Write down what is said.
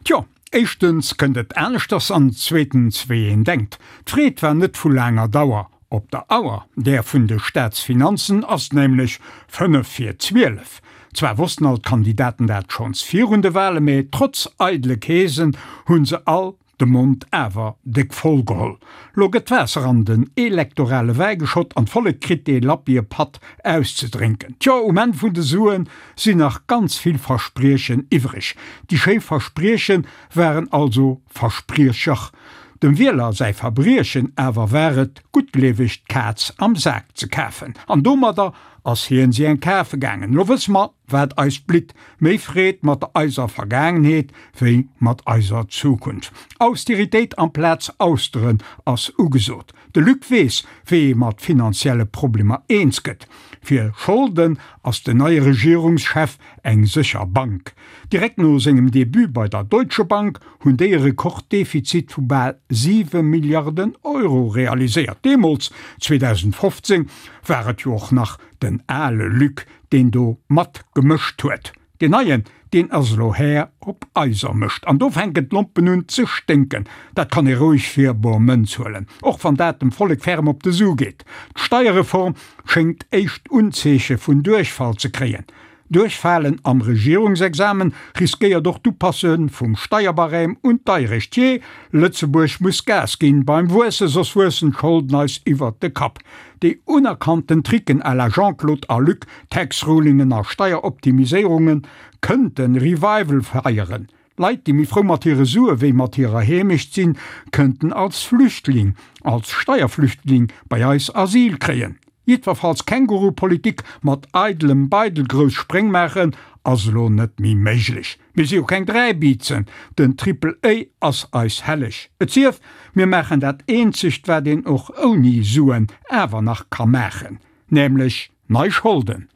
Tjo, éischtens kënnt et aneschters an zweetens wéi een denkt. D'Freed war net vu laanger Dauer. Op der Auer, där vun de Staatsfinanzen, ass nämlech 5 vir 12. Zwar wossten all d'Kandidaten dat schonns virun de Wale, mä trotz eidele Keesen hu se all de Mond awer déck voll geholl. Lo gëtt Waasser an den elektorale Wäi geschott an d'Vollek kritt dee lappie Patt auszedrénken. Tjo, um Enn vun de Suen sinn nach ganz vill Verspriechen iwwreg. Déi schéi Versprieche waren also Verspriecher. Dem Wieler säi Verbriechen awer war et, guttgleeweg d'Kaz am Sak ze kafen. An domadder ass hien si eng kafe gaangen. Lo wësse mer, wat eis blitt, méi Freed mat eiser Vergaangenheet wéi mat eiser Zukunft. Austeritéit amplaz Austeren ass ugesot. De Luc weess, wéi ee mat finanzielle Problemer eens gëtt. Fir Scholden ass den neie Regierungschef eng sécher Bank. Direkt no sengem Debut bei der Deutsche Bank hunn déi e Rekorddefizit vu bal 7 Milliarden Euro realiséiert. Deemools, 2015, war et jo och nach den ale Luc, deen do mat gemëscht huet. Deen neien, deen ass elo Här op eiser Mëscht. An do fänken d'Lompen un ze sténken. Dat kann ee roueg fir bor Mënz huelen, och wann dat dem Vollek ferm op de Su geet. D'Steierreform schéngt éischt Unzeeche vun Duerchfall ze kréien. Duerchfalen am Regierungsexamen riskéiert och d'Upasse vum Steierbarème un d'Deierecht. Jee, Lëtzebuerg muss Gas ginn beim Wuesse, soss wuessen d'Scholden eis iwwert de Kapp. Déi unerkannten Tricken à la Jean-Claude a Luc, Tax-Rulingen a Steieroptimiséierungen, kënnte Revival feieren. Leit, déi méi frou mat hire Sue wéi mat hirer Heemecht sinn, kënnten als Flüchtling, als Steierflüchtling bei eis Asyl kréien. Jiddwerfalls Känguru-Politik mat eidelem Beidel grouss Spréng maachen, ass elo net méi méiglech. Mir si jo keng Dräibiizen, den Triple A ass eis helleg. Et sief, mir maachen dat eenzegt, wat een och ouni Suen awer nach ka maachen, nämlech nei Scholden.